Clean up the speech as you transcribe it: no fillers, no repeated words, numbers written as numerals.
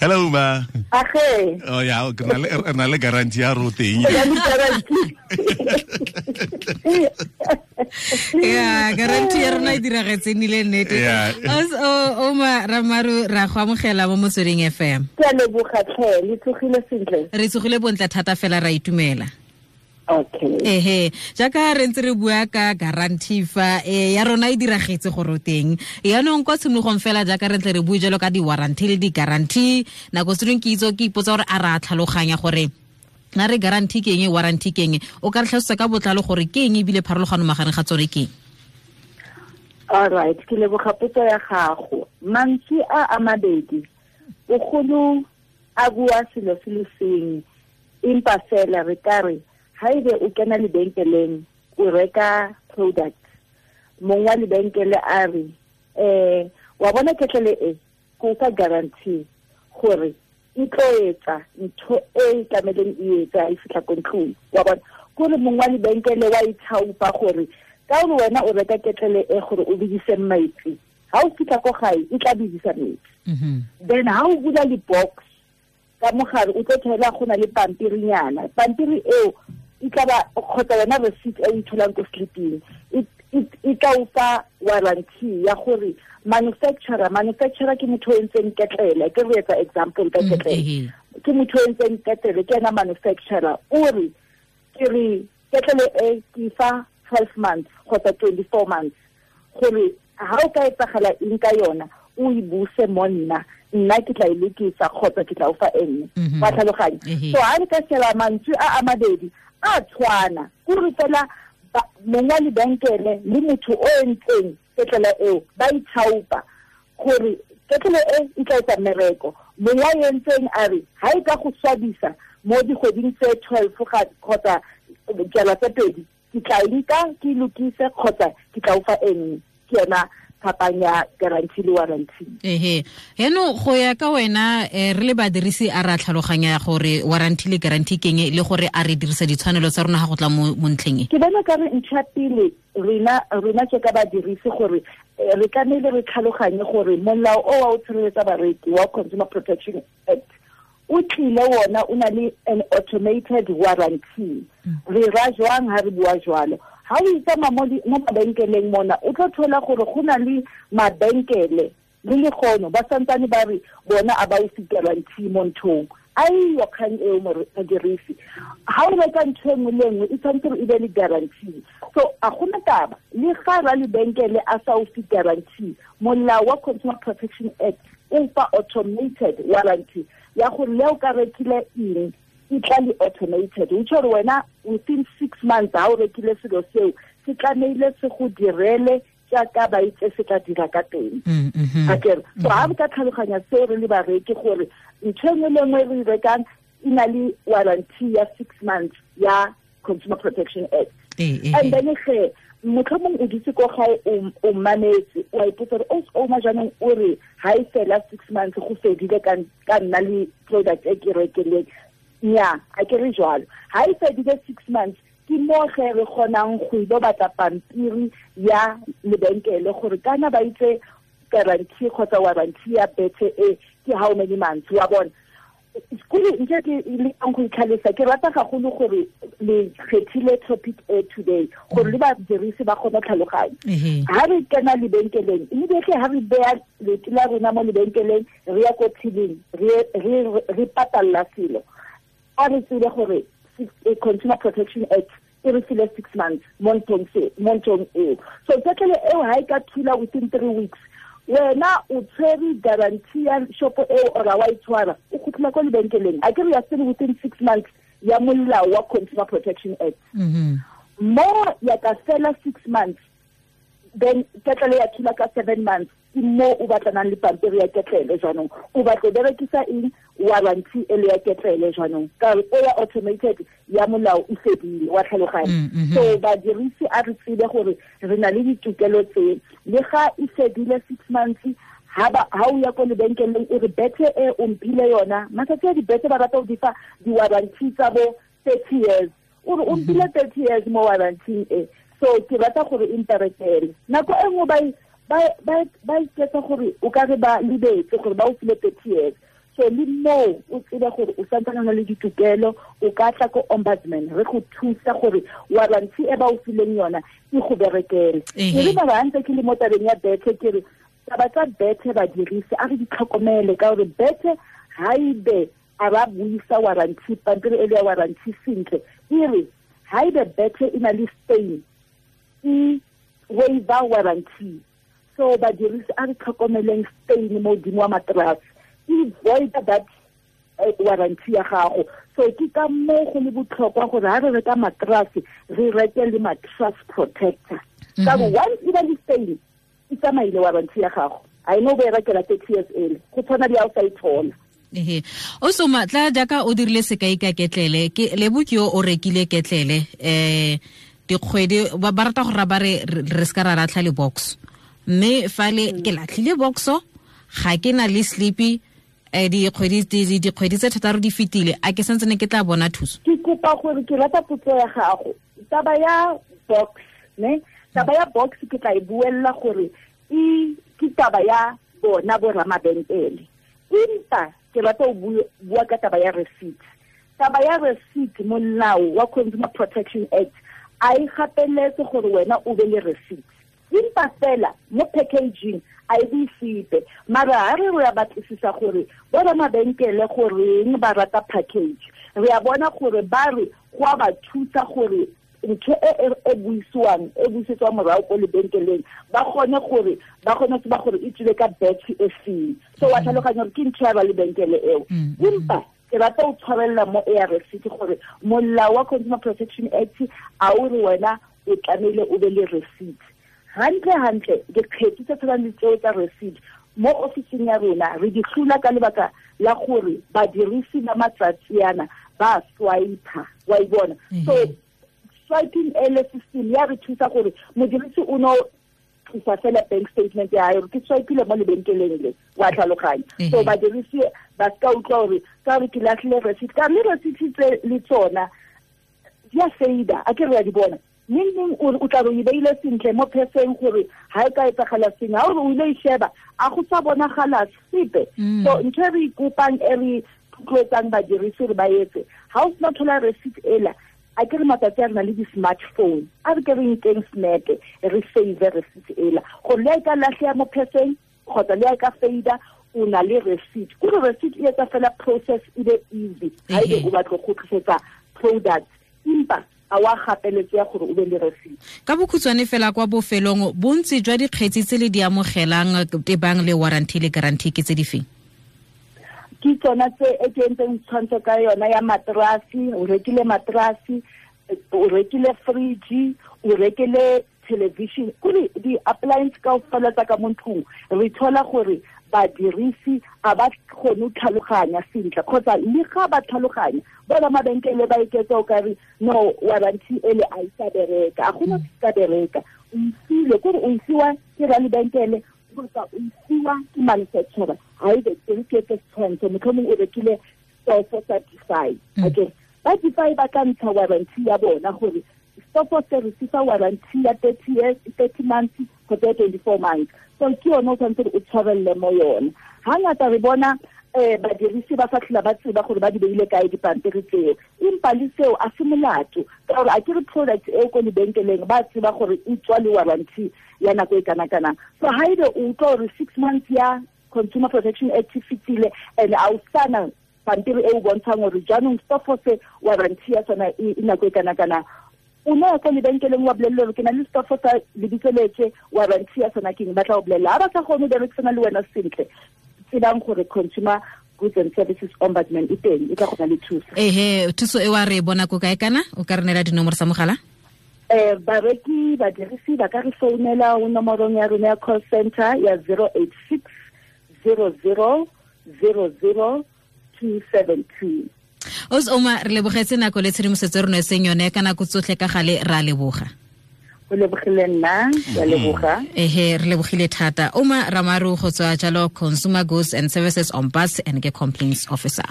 Hello ma. Age. Oh ya, re na le guarantee ya ro teng. Ya, guarantee ya rona e diragetse nile nnete. Ouma Ramaru, ra go amogela mo Motsweding FM. Ke a leboga tlhe, le tsogile sentle. Re tsogile bontle thata fela, ra itumela. Okay. Ehe, jaaka re ntse re bua ka guarantee fa ya rona e diragetse gore o teng. Yaanong kwa tshimologong fela jaaka re tle re bue jalo ka di-warranty le di-guarantee, nako tse dingwe ke itse ke ipotsa gore a re a tlhaloganya gore na re guarantee ke eng, warranty ke eng. O ka re tlhalosetsa ka botlalo gore ke eng ebile pharologano magareng ga tsone ke eng? All right, ke leboga potso ya gago. Mantswe a a mabedi bogolo a bua selo se le sengwe, empa fela re ka re haebe o kena lebenkeleng o reka product, mong wa lebenkele a re wa bona ketlele e ko fa guarantee gore e tlo etsa ntho e tlameleng e etsa e fihla ko ntlong. Wa bona kore mong wa lebenkele wa ithaopa gore ka gore wena o reka ketlele e gore o bedise metsi, ha o fihla ko gae e tla bedisa metsi. Then ha o bula le-box ka mogare o tlo thola go na le pampirinyana, pampiri eo e tla ba kgotsa yona receipt e o tholang ko sliping e tla o fa warranty ya gore manufacturer ke motho o entseng ketlele. Ke re etsa example ka ketlele, ke motho o entseng ketlele, ke ena manufacturer, o re ke re ketlele e ke fa 12 months kgotsa 24 months gore ha o ka etsagala eng ka yona o e buse mo nna, nna ke tla e lokisa kgotsa ke tla o fa e nngwe. Wa tlhaloganya? So ha re ka sheba mantswe a a mabedi a tshwana, kore fela mong wa lebenkele le motho o entseng ketlele eo ba ithaopa gore ketlele e e tla etsa mmereko. Mong wa entseng a re ha e ka go swabisa mo dikgweding tse 12 kgotsa jala tse pedi, ke tla e nka ke lokise kgotsa ke tla o fa e nngwe. Ke yona phapang ya guarantee le warranty. Ehe, eno go ya ka wena re le badirisi a ra tlhaloganya gore warranty le guarantee ke eng, le gore a re dirisa ditshwanelo tsa rona ga go tla mo ntlheng e? Ke bona ka re ntho ya pele rena ke ka badirisi gore re tlamehile re tlhaloganye gore molao o wa o tshireletsa bareki wa Consumer Protection Act o tlile wona o na le an automated warranty. Re ra jwang ha re bua jwalo? Ha o itsamaya mo mabenkeleng mona o tlo thola gore go na le mabenkele le lekgono ba santsane ba re bona a ba o fe guarantee mo nthong. Aiyo kgang eo modirisi, ha o reka ntho e nngwe le nngwe e tshwanetse gore e be le guarantee. So a gona taba le ga ra lebenkele a sa o fe guarantee, molao wa Consumer Protection Act o fa automated warranty ya gore le o ka rekile eng e tla le automated. O tjho gore wena within 6 months ha o rekile selo seo se tlamehile se go direle jaaka ba itse se tla dira ka teng. Akere so ha re ka tlhaloganya seo re le bareki gore ntho e nngwe le nngwe re e rekang e na le warranty ya 6 months ya Consumer Protection Act. And then ge motlhomong o dutse ko gae o mametse, o a ipotsa gore o jaanong o re ha e fela 6 months go fedile ka nna le product e ke rekileng. Nya, a ke re jwalo. Ha e fedile 6 months ke mo ge re kgonang go ilo batla pampiri ya lebenkele gore kana ba itse guarantee kgotsa warranty ya bethe e ke how many months. Wa bona kore nke ke lekang go itlhalosa, ke rata gagolo gore le kgethile topic e today gore le badirisi ba kgone tlhaloganya. Ha re kena lebenkeleng immediately, ha re beya leoto la rona mo lebenkeleng re ya ko tilling re patalla selo, a re tsebe gore Consumer Protection Act e re file 6 months mo nthong eo. So ketlele eo ha e ka thula within 3 weeks, wena o tshwere guarantee ya shopo eo or wa e tshwara, o kgutlela ko lebenkeleng. A ke re ya still within 6 months ya molao wa Consumer Protection Act. Mo ya ka fela 6 months, then ketlele ya thula ka 7 months, ke mo o batlanang le pampiri ya ketlele jaanong. O batla berekisa eng warranty e le ya ketlele jaanong, ka re o ya automated ya molao e fedile. Wa tlhaloganya? So badirisi a re tsebe gore re na le ditokelo tse, le ga e fedile 6 months ha o ya ko lebenkeleng o re bethe e o mphile yona, matsatsi a dibethe ba rata go di fa di-warranty tsa bo 30 years, o re o mphile 30 years mo warranty e, so ke rata gore e mperekele. Nako e nngwe ba iketsa gore o ka re ba lebetse gore ba o file 30 years. So le moo o tsebe gore o santsane o na le ditokelo, o ka tla ko ombudsman re go thusa gore warranty e ba o fileng yona e go berekele. Ke re ba ntse ke le mo tabeng ya bethe, ke re taba tsa bethe badirisi a re di tlhokomele, ka gore bethe ha ebe a ba buisa warranty, pampiri e le ya warranty sentle, e re ha ebe bethe e na le stain e waiver warranty. So badirisi a re tlhokomeleng stain mo godimo wa mattress, e void that warranty ya gago. So ke ka moo go le botlhokwa gore ha re reka mattress re reke le mattress protector, ka gore once e ba le stain e tsamaile warranty ya gago, a eno o e rekela 30 years ele, go tshwana le ha o sa e thola. Ehe, o soma tla jaaka o dirile sekai ka ketlele, ke lebo ke yo o rekile ketlele dikgwedi ba rata go ra ba re re ska ra latlha le box, mme fale ke latlhile boxo ga ke na le sleepy, dikgwedi tse thataro di fetile, a ke santsene ke tla bona thuso? Ke kopa gore ke rata potso ya gago. Taba ya box, ne? Taba ya box ke tla e buella gore e ke taba ya bona bo ramabenkele, empa ke rata ho bua ka taba ya receipt. Taba ya receipt, molao wa Consumer Protection Act a e gapeletse gore wena o be le receipt, empa fela mo packaging a e bue sepe. Mara ha re ya batlisisa gore bo ramabenkele goreng ba rata package, re a bona gore ba re go a ba thusa gore ntho e buisiwang e buisetswang morago ko lebenkeleng ba kgone gore ba kgone tseba gore e tswile ka batch e feng. So wa tlhaloganya gore ke ntho ya ba lebenkele eo. Empa ke rata o tshwarella mo ya receipt gore molao wa Consumer Protection Act a o re wena o tlamehile o be le receipt. Hantle hantle dikgetsi tse tshwanang le tseo tsa receipt mo ofising ya rona re di hlula ka lebaka la gore badirisi ba matsatsi ana ba swipe, wa e bona. So swiping ele system ya re thusa gore modirisi o no tlisa fela bank statement ya hae, ke swipile mo lebenkeleng le, wa tlhaloganya. So badirisi ba ska utlwa gore ka re ke latlhile receipt, ka le receipt tse le tsona di a fada, a ke re ya di bona neng neng o tla re e beile sentle mo pheseng gore ha e ka etsagala sengwe, ha o re o ile e sheba a go sa bonagala sepe. So ntho e re ikopang e re tlotloetsang badirisi gore ba etse, ha o sena thola receipt ela, a ke re matsatsi a re na le di-smartphone, a re ke re nkeng snap re save receipt ela gore le ha e ka lahleha mo pheseng kgotsa le ha e ka fada, o na le receipt. Kore receipt e etsa fela process e be easy ha ebe o batla go kgutlisetsa product, empa a wa gapeletse ya gore o be le receipt. Ka bokhutshwane fela kwa bofelong, bontsi jwa dikgetsi tse le di amogelang tebang le warranty le guarantee ke tse di feng? Ke tsona tse e ke entseng tshwantsho ka yona ya matrasi, o rekile matrasi, o rekile fridge, o rekile television, kore di-appliance kaofela tsa ka mo ntlong re thola gore badirisi a ba kgone ho tlhaloganya sentle, kgotsa le ga ba tlhaloganya bona mabenkele ba iketsa o ka re no warranty ele a e sa bereka, a gona se ka bereka. O isile kore o isiwa ke ralebenkele kgotsa o isiwa ke manufacturer, ha ebe ke ke tshwantsho mohlomong o rekile stofo sa Defy, okay, ba Defy ba ka ntsha warranty ya bona gore stofo se re se fa warranty ya 30 years, 30 months kgotsa 24 months. So ke yone o tshwanetse o tshwarelle mo yone. Hangata re bona badirisi ba sa tlhola ba tseba gore ba di beile kae dipampiri tseo, empa le seo a se molato ka gore a ke re product eo ko lebenkeleng ba tseba gore e tswa le warranty ya nako e kana-kanang. So ha ebe o utlwa gore 6 months ya Consumer Protection Act e fetile and a o sana pampiri e o bontshang gore jaanong stofo se warranty ya sona e nako e kana-kanang, o no ya ko lebenkeleng wa bolelle gore ke na le stofo sa lebitso letse, warranty ya sona ke eng, ba tla o bolella. Ha ba sa kgone ho berekisana le wena sentle, tsebang gore Consumer Goods and Services Ombudsman e teng, e tla go na le thuso. Ehe, thuso e wa re bona ko kae kana? O ka re neela dinomoro tsa mogala? Bareki, badirisi ba ka re founela ho nomorong ya rona ya call center ya 086 00 00 272. Os Oma, re lebogetse nako le tshedimosetso re neetseng yone ka nako tsotlhe ka gale, ra leboga. O lebogile nna, ra leboga. Ehe, re lebogile thata. Oma Ramaru go tswa jalo Consumer Goods and Services Ombudsman and ke Complaints Officer.